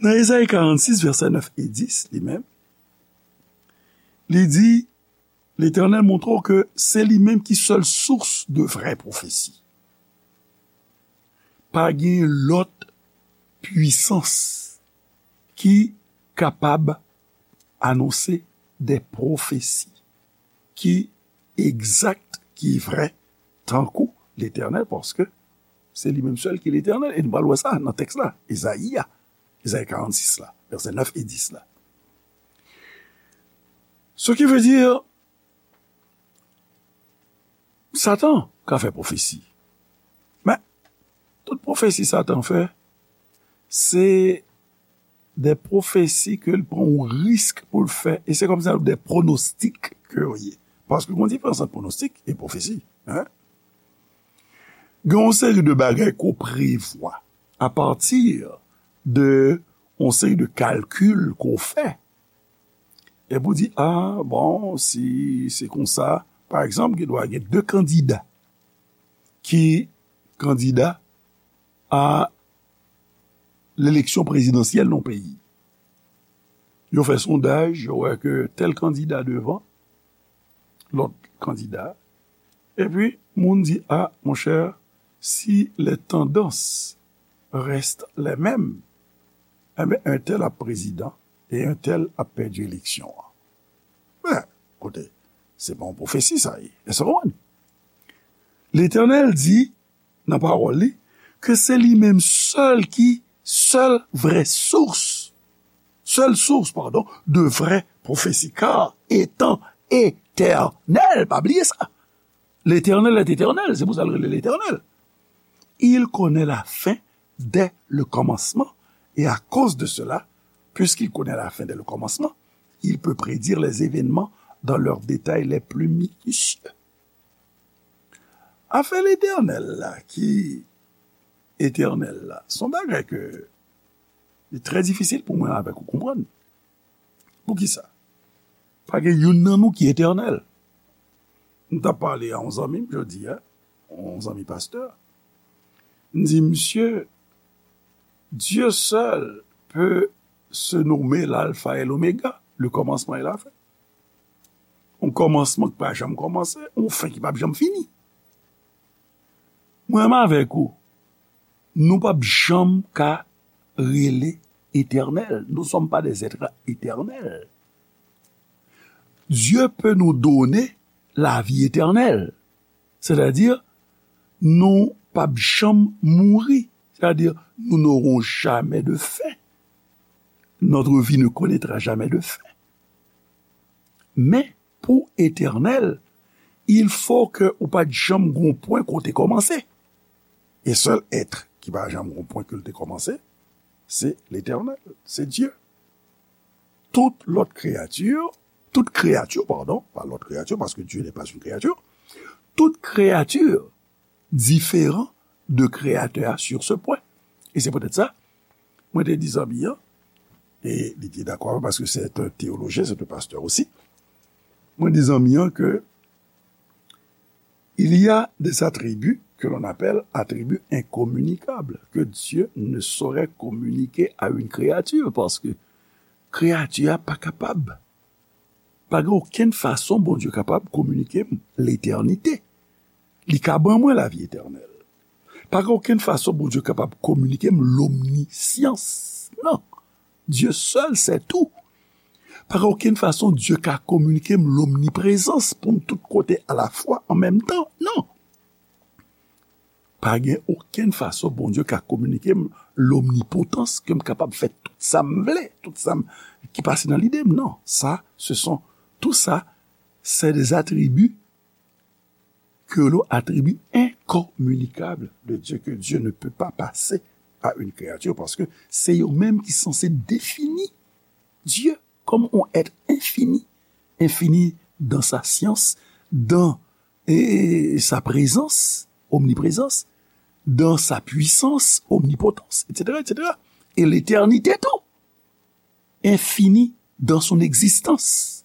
Nan Ezayi karannsis, vèsè nèf e dis, li menm, li di, Letènèl montre w ke se li menm ki sèl sous de vrè pwofesi. Pa gen lòt pwisans ki kapab anonse de pwofesi ki egzak, ki vrè, tankou Letènèl, paske se li menm sèl ki Letènèl. E nou pral wè sa nan tèks la, Ezayi a, Ezayi karannsis la, vèsè nèf e dis la. Ce qui veut dire, Satan ka fè pwofesi. Men, tout pwofesi Satan fè, se de pwofesi ke l pran yon risk pou l fè. E se kòmsi de pwonostik ke yo ye. Paske gen yon diferans ant pwonostik e pwofesi. Hein? Gen yon seri de bagay ke w prevwa apati de yon seri de kalkil ke w fè. Epi w di, a, bon, si se konsa, pa egzanp, gen dwa gen de kandida ki kandida a leleksyon prezidansyèl nan peyi. Yo fè sondaj, yo wè ke tèl kandida devan lòt kandida. Epi, moun di, a, monchè, si les tendances restent les mêmes, enben, entèl ap prezidan e entèl ap pèdi eleksyon an. Men, koute, se pa yon pwofesi sa ye. Èske w konprann? Letènèl di, nan pawòl li, ke se li menm sèl ki sèl vrè sous, sèl sous, padon, de vrè pwofesi, car étant éternel, pa bliye sa. L'Éternel est éternel, se pou sa l rele Letènèl. Il connaît la fin dès le commencement, et à cause de cela, puisqu'il connaît la fin dès le commencement, il peut prédire les événements dans leurs détails les plus minutieux. Afè Letènèl la, ki etènèl la, se yon bagay ke li trè difisil pou mwen avèk ou konprann. Poukisa? Pa gen youn nan nou ki etènèl. M t ap pale a yon zanmi m jodi a, yon zanmi pastè. M di, "Monsieur, Dieu seul peut se nommer l'alpha et l'oméga, le commencement et la fin." Yon kòmansman ki pa janm kòmanse, yon fen ki p ap janm fini. Mwen menm avèk ou, nou p ap janm ka rele etènèl. Nous ne sommes pas des êtres éternels. Dieu peut nous donner la vie éternelle. Sètadi, nou p ap janm mouri. Sètadi, nous n'aurons jamais de fin. Notre vie ne connaîtra jamais de fin. Men, pou etènèl, il faut que ou pa t janm gon pwen kote kòmanse. E sèl èt ki pa janm gon pwen ke l te kòmanse, se Letènèl, se Dye. Tout lòt kreyati, tout kreyati, padon, pa lòt kreyati, paske Dye n'est pas une créature, tout kreyati diferan de Kreyatè a sur ce point. E se poutèt sa, mwen te di zanmi an, e li te dakò avè m, paske se yon teyolojyen, se yon pastè osi. Mwen di zanmi an ke il y a des attributs que l'on appelle attributs incommunicables, que Dieu ne saurait communiquer à une créature, paske kreyati a pa kapab. Pa gen okenn fason Bondye kapab kominike m letènite. Li ka ban mwen lavi etènèl. Pa gen okenn fason Bondye kapab kominike m lomnisyans. Non. Dieu seul sait tout. Pa gen okenn fason Dye ka kominike m lomniprezans pou m tout kote alafwa an menm tan. Non. Pa gen okenn fason Bondye ka kominike m lomnipotans, ke m kapab fè tout sa m vle, tout sa m, ki pase nan lide m. Non, sa, ce sont, tout sa, c'est des attributs que l'on attribue incommunicables de Dieu, que Dieu ne peut pas passer à une créature, paske se yo menm ki sanse defini Dye kòm yon èt enfini, enfini dans sa science, dans, et, et sa présence, omniprésence, dans sa puissance, omnipotence, et cetera, et cetera. Et l'éternité tout, infini dans son existence.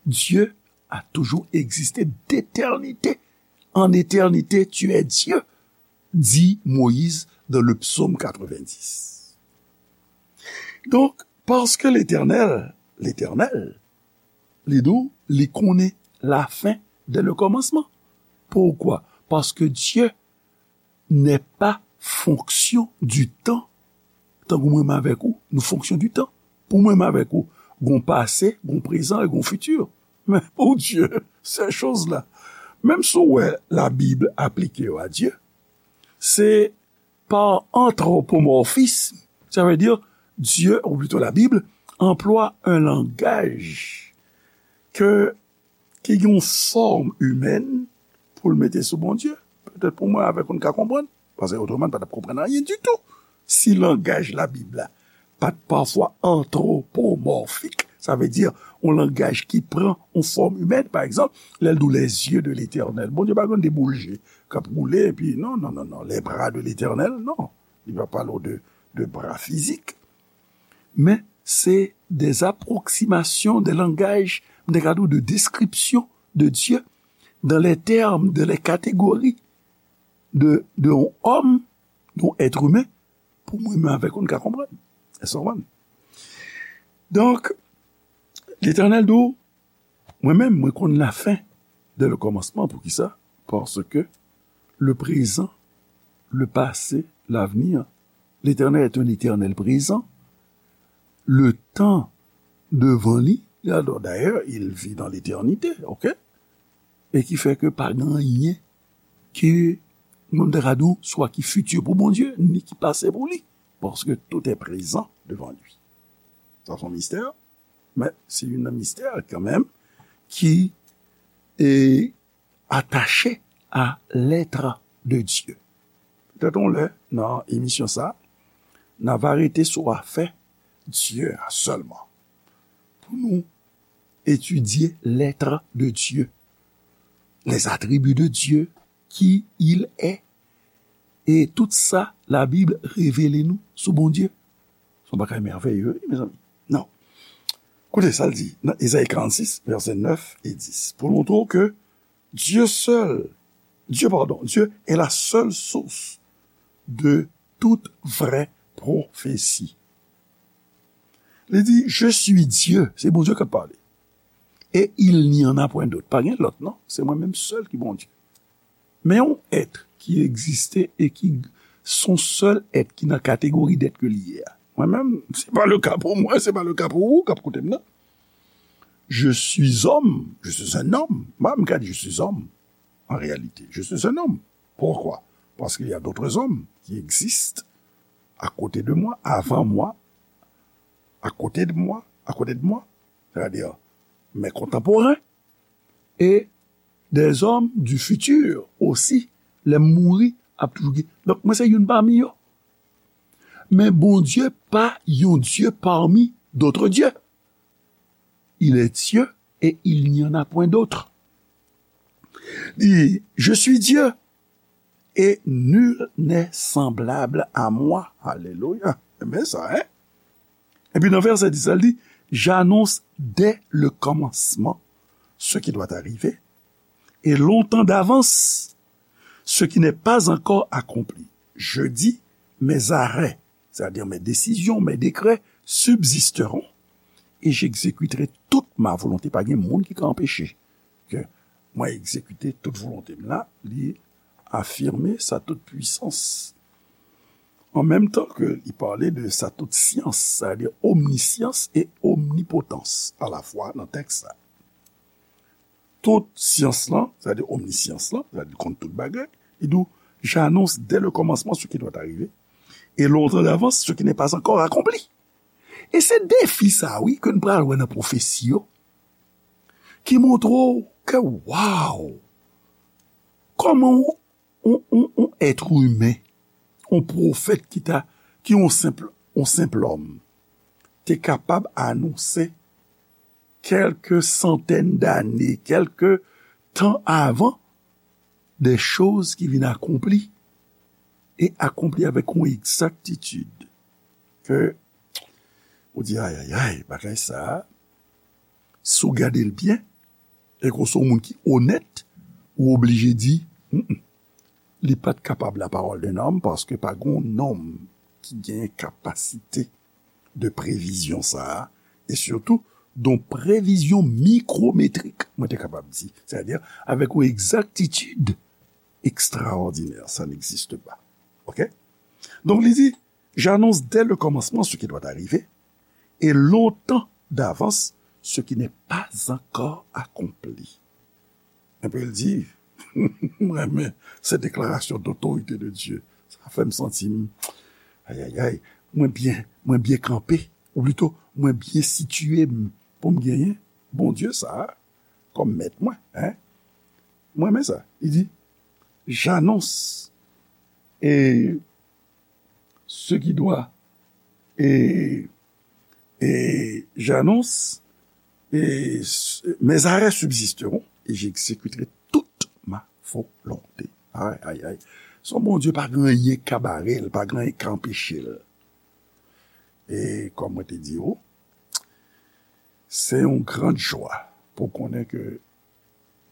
Dieu a toujours existé d'éternité. En éternité, tu es Dieu, dit Moïse dans le psaume quatre-vingt-dix. Donc, parce que l'Éternel, l'Éternel, li di w, li konnen la fin dès le commencement. Pourquoi? Parce que Dieu n'est pas fonction du temps. Tankou mwen menm avèk ou, nou fonction du temps. Pou mwen menm avèk ou, gon pase, gon prezan e gon fiti. Men pou Dye, ces choses-là, menm si w wè Labib aplike yo a Dye, se pa antwopomòfism. Sa vle di, Dye, ou plito Labib, anplwa yon langaj ke ki gen yon fòm imèn pou l mete sou Bondye. Petèt pou mwen avèk ou n ka konprann, paske otreman n pa t ap konprann anyen ditou. Si langaj Labib la pa t pafwa antwopomòfik, sa vle di yon langaj ki pran yon fòm imèn, pa egzanp, lè l di w les yeux de l'Éternel. Bondye pa gen de boul je k ap woule, epi non, non, non, non, les bras de l'Éternel, non. Li pa pale w de, de bra fizik. Men se des approximations, des langages, m te ka di w de description de Dieu dans les termes, dans les catégories de, de yon òm, yon èt imen, pou mwen menm avèk ou n ka konprann. Èske w konprann? Donk, Letènèl di w, mwen menm, mwen konn lafen dès le commencement. Poukisa? Paske le présent, le passé, l'avenir, l'Éternel est un éternel présent. Le tan devan li, dayè, il vit dans l'éternité, ok? E ki fè ke pa gen anyen ke Mwen m ta ka di w, swa ki fiti pou Bondye, ni ki pase pou li. Paske tout est présent devant lui. Sa se yon mistè, men se youn nan mistè kanmenm ki e, attaché à l'être de Dieu. Petèt yon lè, nan emisyon sa, n a va rete sou afè Dye a sèlman. Pou nou etidye l'être de Dieu, les attributs de Dieu, qui il est, e tout sa Labib revele nou sou Bondye. Se yon bagay mèveye, wi, mezanmi. Non. Koute sa l di nan Ezayi karannsis, vèsè nèf e dis, pou l montre w ke Dieu seul, Dieu, pardon, Dieu est la seule source de toute vraie prophétie. Li di, Je suis Dieu, se Bondye k ap pale. Et il n'y en a point d'autre. Pa gen lòt, non. Se mwen menm sèl ki Bondye. Men yon èt ki egziste e ki se yon sèl èt ki nan kategori d'être ke li ye a. Mwen menm, se pa le ka pou mwen, se pa le ka pou ou k ap koute m nan. Je suis homme, je suis un homme. Mwen, m ka di je suis homme, en réalité. Je suis un homme. Pourquoi? Parce qu'il y a d'autres hommes qui existent à côté de moi, avant moi, à côté de moi, à côté de moi, c'est-à-dire mes contemporains, et des hommes du futur aussi, lè m mouri, ap toujou gen. Donk, mwen se youn pami yo. Men Bondye pa yon Dye parmi d'autres dieux. Il est Dieu et il n'y en a point d'autre. Li, Je suis Dieu et nul n'est semblable à moi. Alelouya. Enben sa, hein? Epi nan vèsè dis la, li di, J'annonce dès le commencement ce qui doit arriver, et longtemps d'avance ce qui n'est pas encore accompli. Je dis, Mes arrêts, c'est-à-dire mes décisions, mes décrets, subsisteront, et j'exécuterai toute ma volonté. Pa gen moun ki ka anpeche ke mwen egzekite tout volonte m la, li afime sa tout pwisans. An menm tan ke li pale de sa tout syans, sa vle di omnisyans e omnipotans alafwa nan tèks la. Tout syans lan, sa vle di omnisyans lan, sa vle di konn tout bagay, li di w, J'annonce dès le commencement ce qui doit arriver, et longtemps d'avance ce qui n'est pas encore accompli. E se defi sa, wi, ke n pral wè nan pwofesi yo, ki montre w ke, waw, kòman yon, yon, yon, yon èt imen, yon pwofèt ki ta, ki yon senp, yon senp lòm, te kapab anonse kèlke santèn dane, kèlke tan avan, de choz ki vin akonpli, e akonpli avèk yon egzaktitid ke ou di, ayayay, bagay sa a, si w gade l byen, e ke w se yon moun ki onèt, ou oblije di, mm, mm, li pa t kapab la parole d'un homme, paske pa gen yon nonm ki gen kapasite de previzyon sa a, e sitou, yon previzyon mikwometrik, mwen te kapab di, sètadi avèk yon egzaktitid ekstraòdinè, ça n'existe pas. Ok? Donk, li di, J'annonce dès le commencement ce qui doit arriver, et longtemps d'avance ce qui n'est pas encore accompli. Epi l di, mwen renmen se deklarasyon dotorite de Dye. Sa fè m santi m, ayayay, mwen byen, mwen byen kanpe, ou plito, mwen byen sitiye m pou m genyen Bondye sa a kòm mèt mwen, hein? Mwen renmen sa. Li di, j'annonce et ce qui doit, et, et j'annonce, et s-, mes arrêts subsisteront, et j'exécuterai toute ma volonté. Ay, ay, ay. Se yon Bondye pa gen anyen k ka bare l, pa gen anyen k ka anpeche l. E kòm mwen te di w, se yon gran jwa pou konnen ke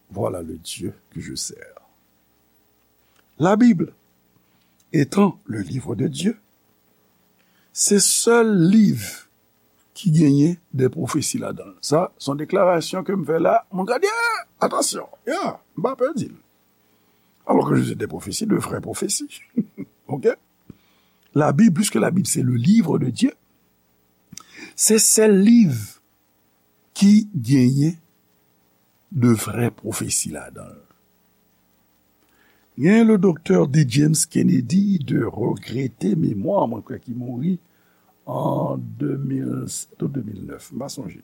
voilà le Dieu que je sers. La Bible étant le livre de Dieu, se sèl liv ki genyen de pwofesi ladan l. Sa, se yon deklarasyon ke m fè la, moun ka di, ah, atansyon, ya, m pa pè di l. Alors que je dis des prophéties, de vraies prophéties. Ok? La Bible, puisque la Bible, c'est le livre de Dieu, se sèl liv ki genyen de vrè pwofesi ladan l. Gen le doktè D. James Kennedy de regrete memwa, mwen kwè ki mouri an de mil sèt ou de mil nèf, m pa sonje.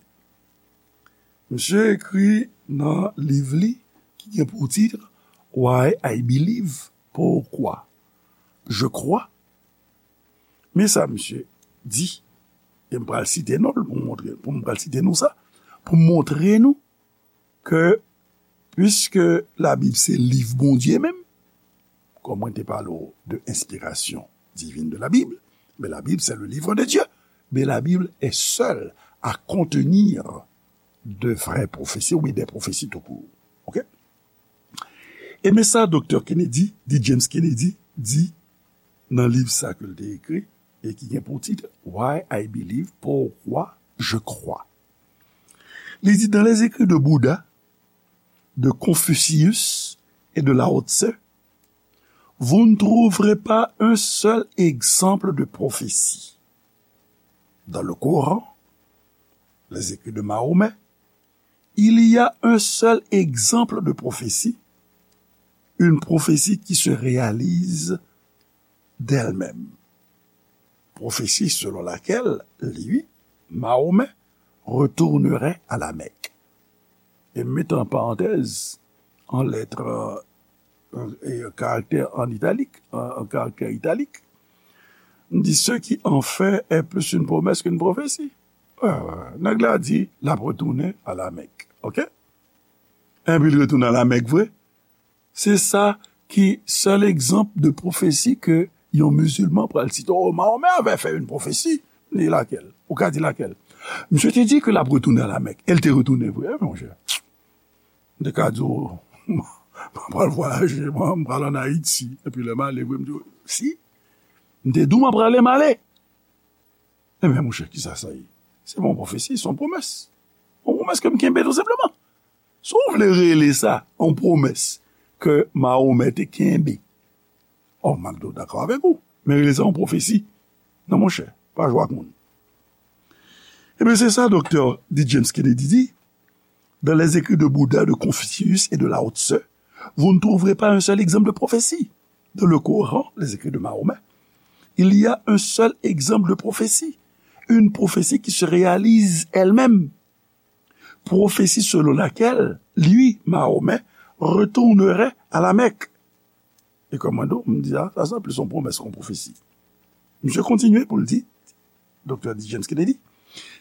Misye ekri nan liv li ki gen pou tit Why I Believe, Pourquoi Je Crois. Men sa misye di, e m pral site non l pou m montre, pou m pral site nou sa, pou m montre nou ke, piske Labib se liv Bondye menm, kòm mwen te pale w de inspiration divine de la Bible, mais la Bible, c'est le livre de Dieu. Mais la Bible est seule à contenir de vraies prophéties, ou bien des prophéties tout court. OK? E men sa doktè Kennedy, D. James Kennedy, di nan liv sa ke l te ekri, e ki gen pou tit Why I Believe, Pourquoi Je Crois. Li di, dans les écrits de Bouddha, de Confucius et de Lao Tse, vous ne trouverez pas un seul exemple de prophétie. Dans le Coran, les écrits de Mahomet, il y a un seul exemple de prophétie, une prophétie qui se réalise d'elle-même. Prophétie selon laquelle, lui, Mahomet, retournerait à la Mecque. E m mete an parantèz, an lèt, euh, e karaktè an italik, an, an karaktè italik, m di, ce qui en fait est plus une promesse qu'une prophétie. Euh, nèg la di, l ap retounen a la Mèk. OK? Enpi l retounen a la Mèk vre. Se sa ki sèl egzanp de pwofesi ke yon mizilman pral site. Oh, Mahomet avait fait une prophétie. Li lakèl? Ou ka di lakèl? Misye te di ke l ap retounen a la Mèk. E l te retounen vre, wi, monchè. M te ka di w, m pral vwayaje, m pral ann Ayiti. Epi lè m ale vre, m di w, si. M te di w m ap prale, m ale. Ebyen, monchè, kisa sa ye? Se pa yon pwofesi, se yon pwomès. Yon pwomès ke m kenbe, tou senpleman. Si w vle rele sa yon pwomès ke Mahomet te kenbe, oh, m ap dakò avèk ou. Men rele sa yon pwofesi. Non, monchè, pa jwe ak moun. Ebyen, se sa doktè D. James Kennedy di. Dans les écrits de Bouddha, de Confucius et de Lao Tse, vous ne trouverez pas un seul exemple de prophétie. Dans le Coran, les écrits de Mahomet, il y a un seul exemple de prophétie. Une prophétie qui se réalise elle-même. Prophétie selon laquelle, lui, Mahomet, retournerait à la Mecque. E kòm mwen di w, m di, ah, sa, sa plis yon pwomès ke yon pwofesi. Misye kontinye pou l di, doktè D. James Kennedy,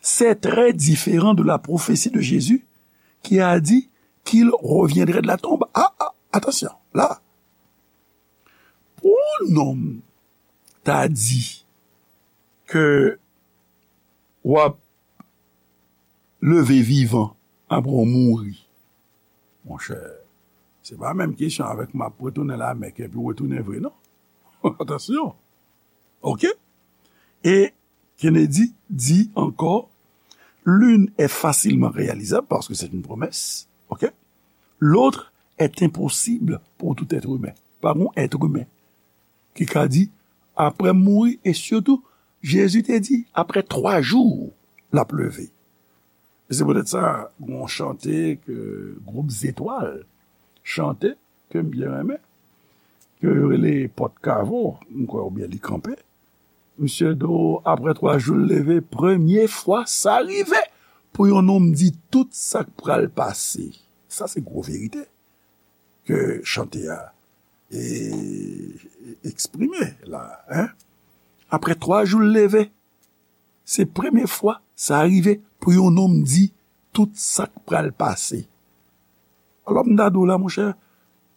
c'est très différent de la prophétie de Jésus qui a dit qu'il reviendrait de la tombe. Ah, ah, attention, là. Pou yon nonm ta di ke w ap leve vivan apre w mouri. Monchè, se pa menm kesyon avèk m ap retounen la Mèk epi w retounen vre, non. Atansyon. OK? E Kennedy di ankò, l'une est facilement réalisable parce que c'est une promesse, OK? L'autre est impossible pour tout être humain. Pa gon èt imen ki ka di, apre m mouri, e sitou, Jezi te di, apre twa jou, l ap leve. E se poutèt sa, gon chante ke gwoup Zetwal chante, ke m byen renmen, ke yo rele Pòt Kavo, m kwè, oubyen Li Kanpe. Misye di w, apre twa jou, l leve, premye fwa sa rive pou yon nonm di tout sa k pral pase. Sa se gwo verite ke chante a e, eksprime la, en. Apre twa jou, l leve. Se premye fwa sa rive pou yon nonm di tout sa k pral pase. Alò, m ta di w la, monchè,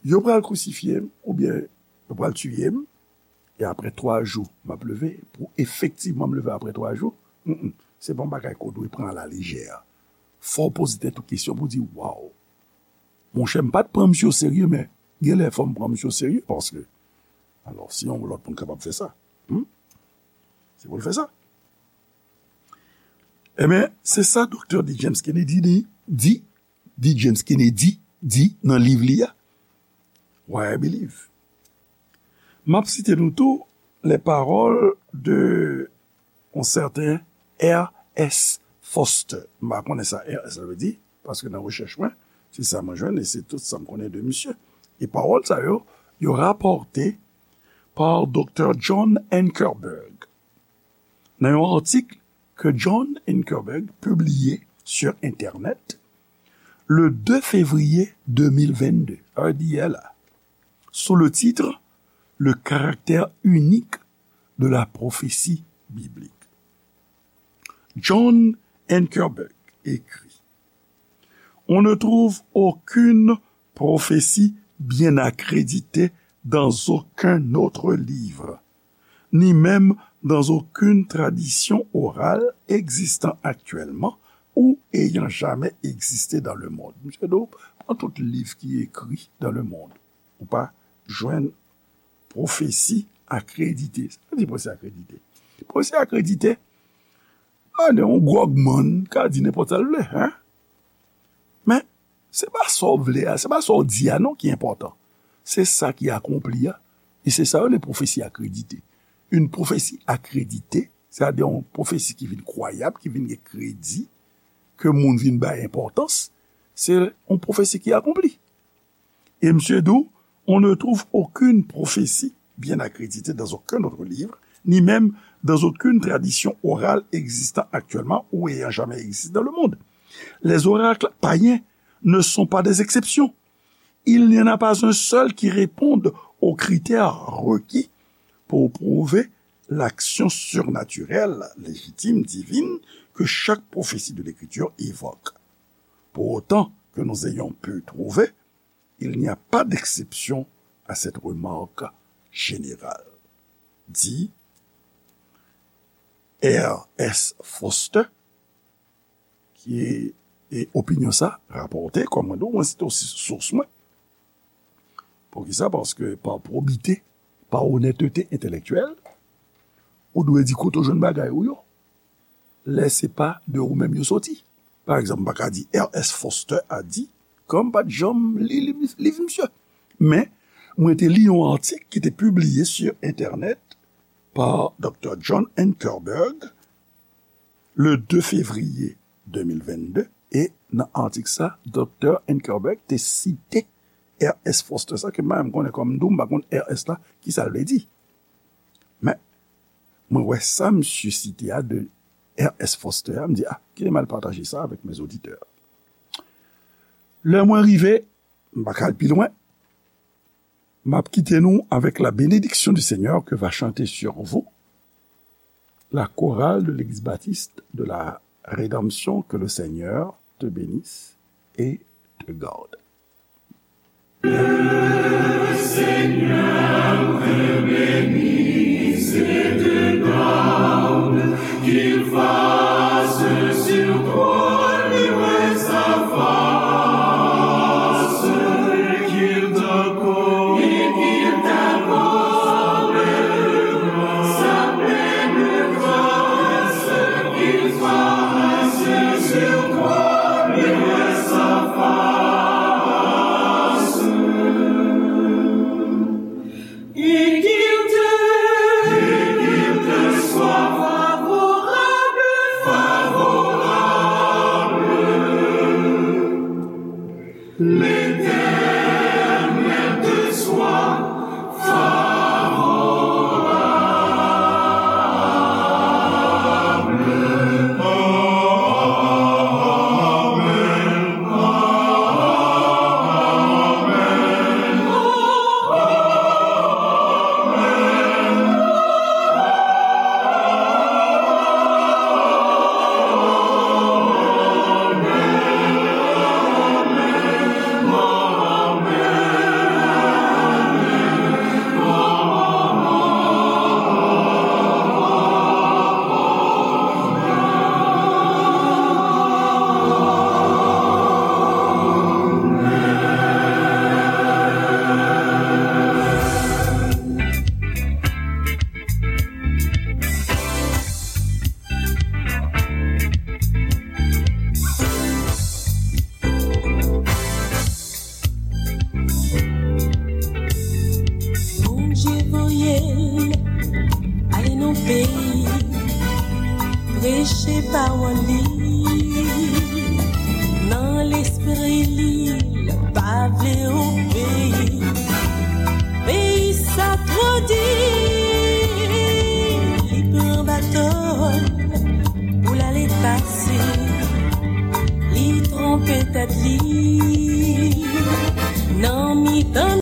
yo pral krisifye m, oubyen yo pral tiye m, e apre twa jou, m ap leve, pou efektivman m leve apre twa jou, mm, mm, se pa yon bagay ke w dwe pran alalejè. Fò w poze tèt ou kesyon pou w di, waw, monchè, m pa t pran misye oserye, men genlè fò m pran misye oserye, paske, alò, si yon lòt moun kapab fè sa, hmm? Se pou l fè sa. Ebyen, se sa doktè D. James Kennedy di, di, D. James Kennedy di nan liv li a, Why I Believe. M ap site nou tou les paroles de yon sèten R. S. Foster. M pa konnen sa R. S. la vle di, paske nan rechèch mwen, se sa mwen jwenn e se tout sa m konnen de misye. E pawòl sa yo, yo rapòte pa Doktè John Ankerberg. Nan yon atik ke John Ankerberg pibliye sou entènèt le de fevriye de mil vennde, sa vle di yè la, sou le titre Le caractère unique de la prophétie biblique. John Ankerberg écrit: On ne trouve aucune prophétie bien accréditée dans aucun autre livre, ni même dans aucune tradition orale existant actuellement ou ayant jamais existé dans le monde. Misye di w, pran tout liv ki ekri dans le monde, ou pa jwenn pwofesi akredite. Sa vle di pwofesi akredite? Pwofesi akredite, a, yon gwògmann ka di nenpòt sa l vle, hein? Men, se pa sa w vle a, se pa sa w di a non ki enpòtan. Se sa ki akonpli a. E se sa yo rele pwofesi akredite. Yon pwofesi akredite, sètadi yon pwofesi ki vin kwayab, ki vin gen kredi, ke moun vin bay enpòtans, se yon pwofesi ki akonpli. Et monsieur dit, on ne trouve aucune prophétie bien accréditée dans aucun autre livre, ni même dans aucune tradition orale existant actuellement ou ayant jamais existé dans le monde. Les oracles païens ne sont pas des exceptions. Il n'y en a pas un seul qui réponde aux critères requis pour prouver l'action surnaturelle, légitime, divine que chaque prophétie de l'Écriture évoque. Pour autant que nous ayons pu trouver, il n'y a pas d'exception à cette remarque générale, dit R S Foster, ki, e opinyon sa rapòte, kòm mwen di w, mwen site osi sous mwen. Poukisa? Paske pa pwobite, pa onètete entèlektyèl, ou dwe di kote w jwenn bagay ou yo. Lè se pa de ou menm yo soti. Pa egzanp, m pa ka di R S Foster a di, kòm m pa t janm li liv, liv misye. Men, mwen te li yon atik ki te pibliye sou entènèt pa Doktè John Ankerberg le de fevriye de mil vennde, e nan atik sa, Doktè Ankerberg te site R S Foster sa, ke m pa menm konnen kòm m di w, m pa konn R S la, ki sa l vle di. Men, mwen wè sa misye site a de R S Foster a, m di, a, kite m al pataje sa avèk mes auditeurs. Lè mwen rive, m pa ka al pi lwen, m ap kite nou avec la bénédiction du Seigneur que va chanter sur vous la chorale de l'Église baptiste de la Rédemption. Que le Seigneur te bénisse et te garde. Bondye voye l ale nan peyi, preche pawòl li nan lespri li, l pa vle obeyi. pou l ale pase. Li twonpe tèt li,